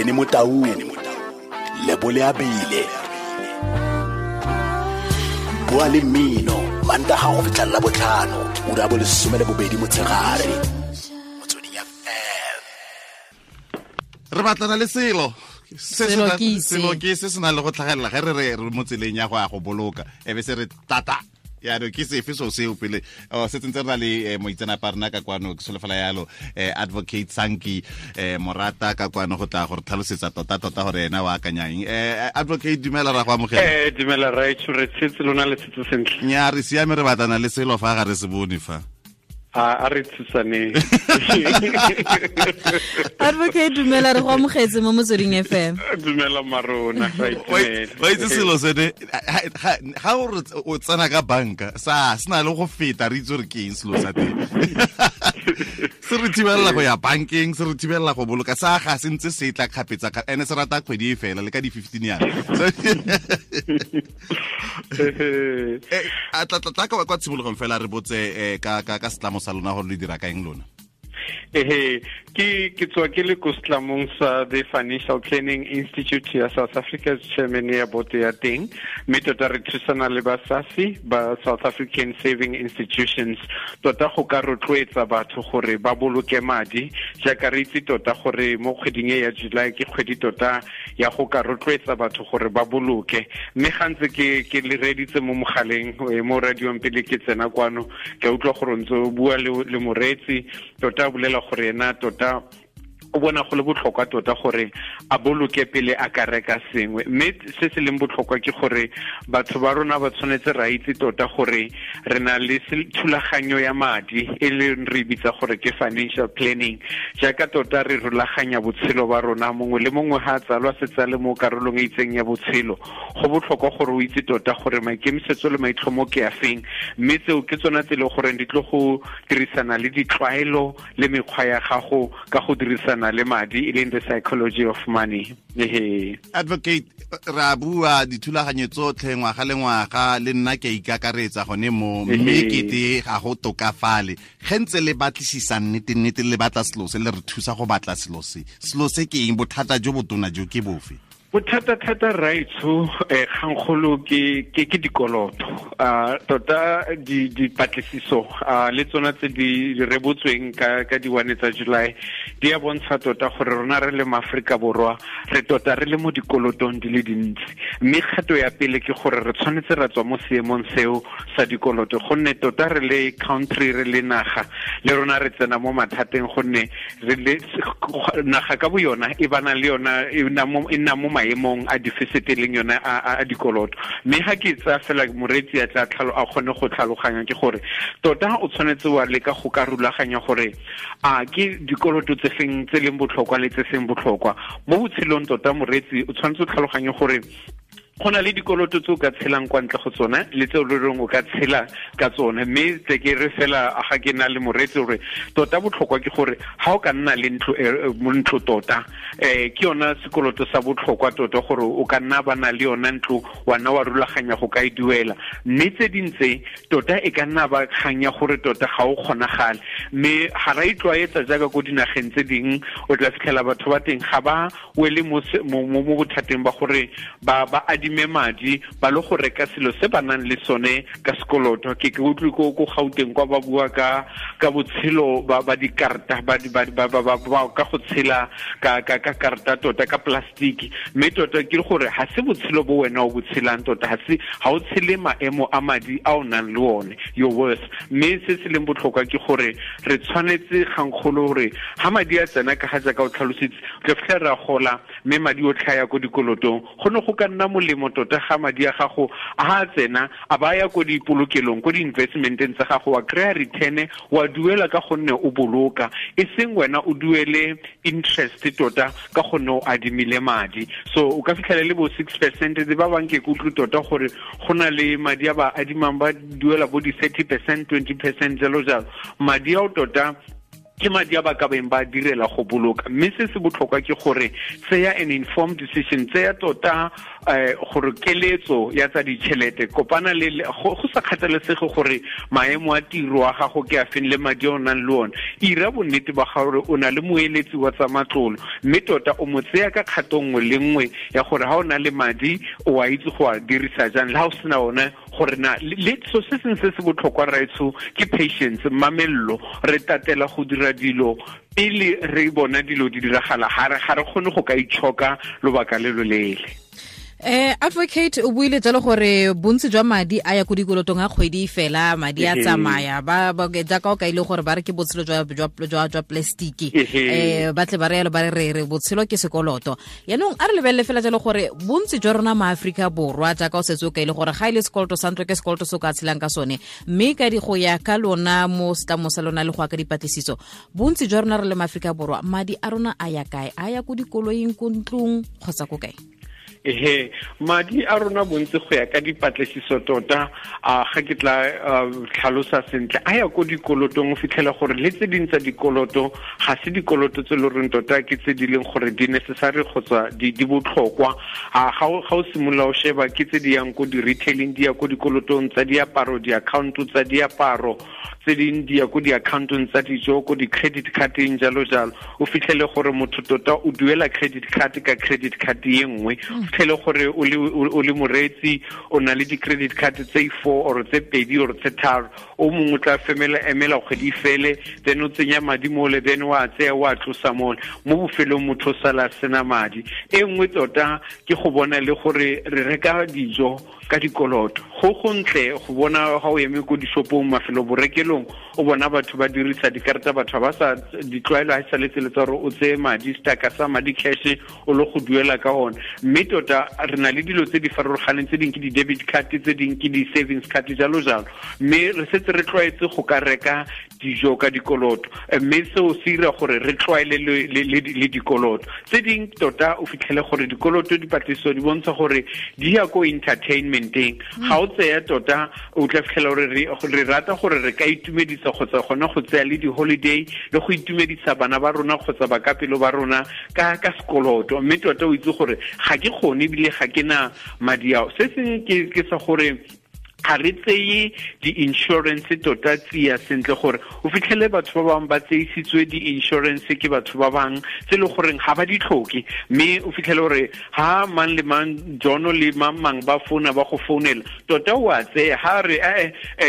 Benny Motau, Lebole Abile. Bua le mmino, Mantaga go fitlha la botlhano, ura bo 12 motshegare. Motsweding FM. Re batlana le selo. Selo ke se. Selo ke se se nang le go tlhagelela ge re re re mo tseleng ya go ya go boloka e be se re tata yaanong ke sefe so seo pele se tsentse re na le moitseanape a rena ka kwano ke solofela yalo advocate Sanki Morata ka kwano go tla gore tlhalosetsa tota-tota gore ena o akanyang. Advocate, dumela, ra go amogela. Dumela raetsho, re tshetse lona le tshetse sentle? Nya, re siame, re batlana le selo fa ga re se bone fa. A re thusaneng. Advocate, dumela, re go amogetse mo Motsweding FM. Dumela marona, ra itumela. Wa itse selo sene ga o re o tsena ka banka sa se na le go feta, re itse gore ke eng selo sa teng se re thibelela go ya bankeng, se re thibelela go boloka, sa ga se ntse se tla kgapetsa, ene se rata kgwedi e fela le ka di-15 yana. A tla kwa tshimologong fela re botse ka setlamo sa lona gore le dira ka eng lona. Ehe, ke tswa ke le ko setlamong sa the Financial Planning Institute ya South Africa, chairman ya boto ya teng, mme tota re thusana le ba SASI, ba South African Saving Institutions, tota go ka rotloetsa batho gore ba boloke madi, jaaka re itse tota gore mo kgweding e ya July ke kgwedi tota ya go ka rotloetsa batho gore ba boloke. Mme ga ntse ke le reditse mo mogaleng, mo radiong pele ke tsena kwano, ke utlwa gore ntse o bua le moreetsi, tota bolela gore ena tota o bona go le botlhokwa tota gore a boloke pele a ka reka sengwe. Mme se se leng botlhokwa ke gore batho ba rona ba tshwanetse ra itse tota gore re na le thulaganyo ya madi e leng re bitsa gore ke financial planning, jaaka tota re rulaganya botshelo ba rona. Mongwe le mongwe ha a tsalwa se tsale mo karolong e itseng ya botshelo, go botlhokwa gore o itse tota gore maikemisetso le maitlhomo ke a feng, mme tseo ke tsona tse e leng gore di tlo go dirisana le ditlwaelo le mekgwa ya gago ka go dirisana le madi, e leng the psychology of money. Advocate, re a bua dithulaganyo tsotlhe ngwaga le ngwaga, le nna ke a ikakaretsa gone mo, mme kete ga go tokafale. Ge ntse le batlisisa nnete-nnete, le batla selo se, le re thusa go batla selo se. Selo se ke eng? Bothata jo botona jo ke bofe? Bothata-thata raetsho, kgangkgolo ke dikoloto. Tota dipatlisiso le tsona tse di rebotsweng ka di-1 tsa July di a bontsha tota gore rona re le maAforika Borwa re tota re le mo dikolotong di le dintsi. Mme kgato ya pele ke gore re tshwanetse ra tswa mo seemong seo sa dikoloto, gonne tota re le country, re le naga, le rona re tsena mo mathateng, gonne re le naga ka bo yona e bana le yona e nna mo maemong a deficit e leng yona a dikoloto. Mme ga ke tsaya fela moreetsi a tla a kgone go tlhaloganya ke gore tota o tshwanetse wa leka go ka rulaganya gore a ke dikoloto tse feng tse leng botlhokwa le tse seng botlhokwa mo botshelong. Tota moreetsi o tshwanetse o tlhaloganye gore go na le dikoloto tse o ka tshelang kwa ntle go tsona le tse o le reng o ka tshela ka tsone. Mme tle ke re fela ga ke na le moreetsi gore tota botlhokwa ke gore ga o ka nna le ntlo, mo ntlo tota, ke yona sekoloto sa botlhokwa tota, gore o ka nna ba na le yona ntlo, wa nna wa rulaganya go ka e duela. Mme tse dintse tota e ka nna ba kgang ya gore tota ga o kgonagale, mme ga ra itlwaetsa jaaka ko dinageng tse dingwe. O tla fitlhela batho ba teng ga ba wele mo bothateng ba gore ba adime madi ba le go reka selo se ba nang le sone ka sekoloto. Ke utlwe ko Gauteng kwa ba bua ka botshelo ba dikarta, ba ka go tshela ka karta tota ka plastiki. Mme tota ke gore ha se botshelo bo wena o bo tshelang, tota ha se ha o tshele maemo a madi a o nang le one, your worth. Mme se se leng botlhokwa ke gore re tshwanetse gangkgolo gore ha madi a tsena, ka ga jaaka o tlhalositse, re fitlhela ra gola mme madi o tlhaya ko dikolotong. Go ne go ka nna molemo tota ga madi a gago a tsena a ba ya ko dipolokelong, ko di-investmenteng tsa gago, wa kry-a return, wa duela ka gonne o boloka, e seng wena o duele interest tota ka gonne o adimile madi. So o ka fitlhela le bo 6%, ba bang ke kutlwe tota gore go na le madi a ba adimang ba duela bo di-30%, 20%, jalo jalo. Madi ao tota Ke madi a ba ka beng ba direla go boloka. Mme se se botlhokwa ke gore tseya an informed decision, tseya tota gore keletso ya tsa ditšhelete, kopana le go sa kgathalesege gore maemo a tiro a gago ke a feng le madi a o nang le one. Ira bonnete ba gore o na le moeletsi wa tsa matlolo, mme tota o mo tseya ka kgato nngwe le nngwe ya gore ha o na le madi o a itse go a dirisa jang, le ha o sena one gore na le so se sengwe se se botlhokwa raetsho ke patience, mamello. Re tatela go dira dilo pele re bona dilo di diragala, ga re kgone go ka itshoka lobaka le loleele. Advocate, o buile jalo gore bontsi jwa madi a ya ko dikolotong a kgwedi fela, madi a tsamaya ba jaaka o kaile gore ba re ke botshelo jwa plastic, ba tle ba re yalo ba re re botshelo ke sekoloto. Yaanong a re lebelele fela jalo gore bontsi jwa rona ma Afrika Borwa, jaaka o setse o kaile gore ga ile sekoloto sa ntlo ke sekoloto se o ka tshelang ka sone, mme ka di go ya ka lona mo setlamo sa lona le go ya ka dipatlisiso, bontsi jwa rona re le ma Afrika Borwa madi a rona a ya kae? A ya ko dikoloing, ko ntlong kgotsa ko kae? Ehe, madi a rona bontsi go ya ka dipatlisiso tota, a ga ke tla tlhalosa sentle, a ya ko dikolotong. O fitlhela gore le tse ding tsa dikoloto ga se dikoloto tse le reng tota ke tse di leng gore di necessary kgotsa di botlhokwa. Ga o simolola o sheba ke tse di yang ko di-retailing, di ya ko dikolotong tsa diaparo, di-account tsa diaparo, tse ding di ya ko di-accountong tsa dijo, ko di-credit cardeng, jalo jalo. O fitlhele gore motho tota o duela credit card ka credit card ye nngwe. O fitlhele gore o le moreetsi o na le di-credit card tse 4 or tse 2 or tse 3, o mongwe o tla emela kgwedi fele, then o tsenya madi mole, then wa tseya wa tlosa mole, mo bofelong motho o sala sena madi. E nngwe tota ke go bona le gore re reka dijo ka dikoloto. Go gontle go bona ga o eme ko dishopong, mafelo borekelong, o bona batho ba dirisa dikarata, batho ba sa ditlwaelo ha sa letsele tsa gore o tseye madi, staka sa madi cash o lo go duela ka one. Mme tota re na le dilo tse di farologaneng, tse ding ke di-debit card, tse ding ke di-savings card, jalo jalo. Mme re setse re tlwaetse go ka reka dijo ka dikoloto, mme seo se dira gore re tlwaele le dikoloto. Tse ding tota o fitlhele gore dikoloto dipatlisiso di bontsha gore di ya ko entertainmenteng. Ga o tseya tota o tla fitlhela gore re rata gore re ka itumedisa kgotsa gona go tseya le di-holiday le go itumedisa bana ba rona kgotsa bakapelo ba rona ka sekoloto. Mme tota o itse gore ga ke kgone ebile ga ke na madi ao. Se sengwe ke sa gore ga re tseye di-insurance tota tsia sentle, gore o fitlhele batho ba bangwe ba tseisitswe di-insurance ke batho ba bangwe tse e le goreng ga ba di tlhoke. Mme o fitlhele gore ha mang le mang, Jono le mang mang ba founa, ba go founela, tota o a tseya ha re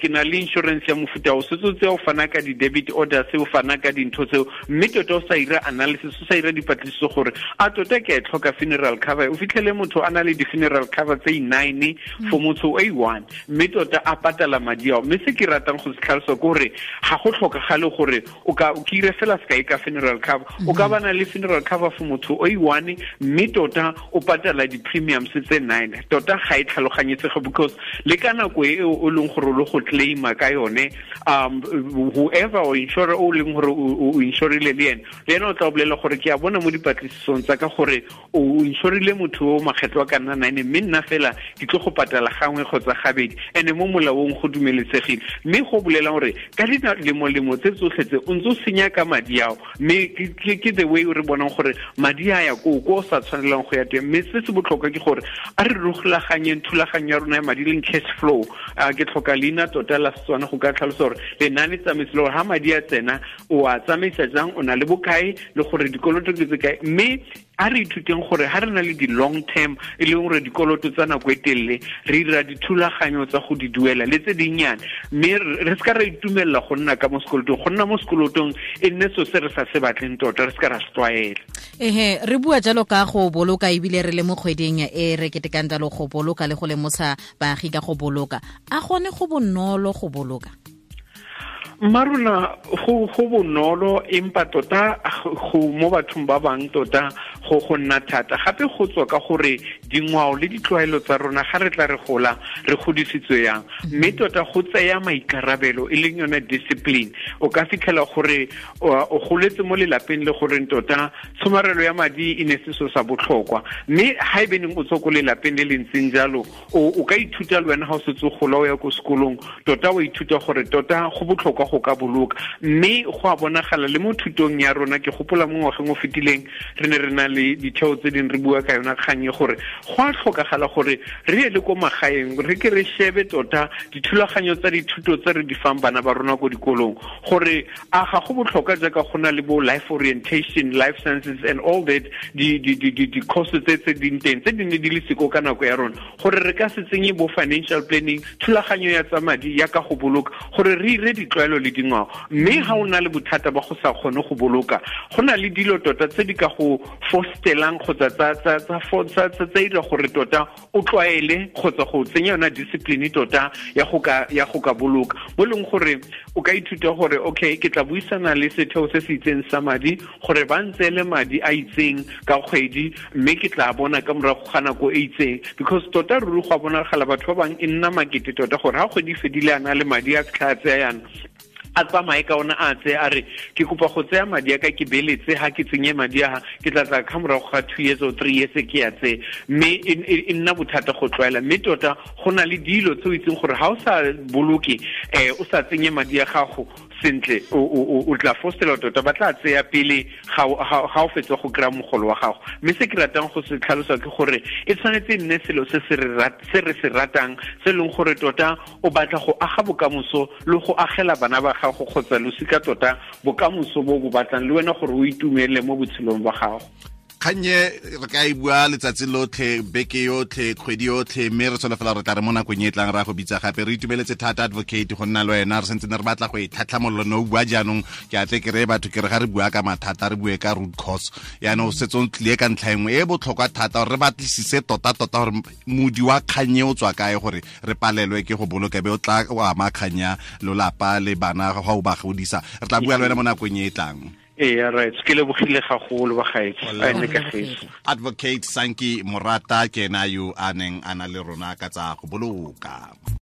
ke na le insurance ya mofuta o setse o tseya, o fana ka di-debit orders, o fana ka dintho tseo, mme tota o sa ira analysis, o sa ira dipatlisiso gore a tota ke a e tlhoka funeral cover. O fitlhele motho a na le di-funeral cover tse 9 for motho o 1, mme tota a patala madi ao. Mme se ke ratang go se tlhalosa ke gore ga go tlhokagale gore o ka o kire fela sekai ka funeral cover, o ka bana le funeral cover for motho o i1, mme tota o patala di-premiums tse 9. Tota ga e tlhaloganyetsege, because le ka nako e o leng gore o le go claima ka yone, whoever o insurer o leng gore o insurile le ene o tla o bolela gore ke a bona mo dipatlisisong tsa ka gore o insurile motho o makgetlo a ka nna 9, mme nna fela ke tlo go patala gangwe kgotsa gabedi, ene mo molaong go dumeletsegile. Mme go bolela gore ka dilemolemo tse tsotlhe tse o ntse o senya ka madi ao, mme ke the way re bonang gore madi a ya ko o sa tshwanelang go ya teng. Mme se se botlhokwa ke gore a re rulaganyeng thulaganyo ya rona ya madi, leng cash flow. Ke tlhoka leina tota la Setswana go ka tlhalosa gore lenane tsamaiso le gore ha madi a tsena o a tsamaisa jang, o na le bokae, le gore dikoloto ke tse kae. Mme a re ithuteng gore ha re na le di-long term, e leng gore dikoloto tsa nako e telele, re dira dithulaganyo tsa go di duela le tse dinnyane, mme re se ka ra itumelela go nna ka mo sekolotong. Go nna mo sekolotong e nne so se re sa se batleng tota, re se ka ra se tlwaela. Ehe, re bua jalo ka go boloka, ebile re le mo kgweding e re ketekang jalo go boloka le go lemosa baagi ka go boloka. A gone go bonolo go boloka? Marona go bonolo, empa tota go mo bathong ba bang tota Go nna thata gape go tswa ka gore dingwao le ditlwaelo tsa rona ga re tla re gola re godisitswe yang, mme tota go tseya maikarabelo e leng yone discipline. O ka fitlhela gore o goletse mo lelapeng le goreng tota tshomarelo ya madi e ne se so sa botlhokwa, mme ha e beneng o tswa ko lelapeng le le ntseng jalo, o ka ithuta le wena ga o setse o gola o ya ko sekolong, tota o ithuta gore tota go botlhokwa go ka boloka. Mme go a bonagala le mo thutong ya rona, ke gopola mo ngwageng o fetileng re ne re na le ditheo tse dingwe re bua ka yona kgang e gore go a tlhokagala gore re ye le ko magaeng re ke re shebe tota dithulaganyo tsa dithuto tse re di fang bana ba rona ko dikolong, gore a ga go botlhokwa jaaka go na le bo life orientation, life sciences and all that, di-course tse ding teng tse di ne di le siko ka nako ya rona, gore re ka se tsenye bo financial planning, thulaganyo ya tsa madi ya ka go boloka, gore re ire ditlwaelo le dingwao. Mme ga o na le bothata ba go sa kgone go boloka, go na le dilo tota tse di ka go fostelang kgotsa tsa dira gore tota o tlwaele kgotsa go tsenya yona discipline tota ya go ka boloka, bo leng gore o ka ithuta gore okay, ke tla buisana le setheo se se itseng sa madi gore ba ntseele madi a itseng ka kgwedi, mme ke tla bona ka morago ga nako e itseng. Because tota ruri go a bonagala batho ba bangwe e nna makete tota gore ga kgwedi fedile a na le madi a fitlha a tseya yana, a tsamaye ka ona a tse a re ke kopa go tseya madi a ka ke beletse, ha ke tsenye madi a ke tla tla ka morago ga 2 years or 3 years ke ya tse, mme e nna bothata go tlwaela. Mme tota go na le dilo tse o itseng gore ha o sa boloke, o sa tsenye madi a gago sentle, o tla fostela tota ba tla tseya pele ga o fetsa go kry-a mogolo wa gago. Mme se ke ratang go se tlhalosa ke gore e tshwanetse e nne selo se re se ratang, se leng gore tota o batla go aga bokamoso le go agela bana ba gago kgotsa losika tota bokamoso bo bo batlang le wena gore o itumele mo botshelong ba gago. Kgannye re ka e bua letsatsi lotlhe, beke yotlhe, kgwedi yotlhe, mme re solofela re tla re mo nakong e tlang ra go bitsa gape. Re itumeletse thata advocate go nna le wena, re sentse ne re batla go e tlhatlhamolola no bua jaanong. Ke atle ke reye batho ke re ga re bua ka mathata re bue ka root cause, yaanong o setse o tlile ka ntlha engwe e botlhokwa thata gore re batlisise tota-tota gore modi wa kgannye o tswa kae gore re palelwe ke go boloka, be o tla o ama kganya lolapa le bana ga o ba godisa. Re tla bua le wena mo nakong e e tlang. Yeah, right. Ke lebogile gagolo ba gaetsho. Advocate Sanki Morata ke ena yo a neng a na le rona ka tsa go boloka.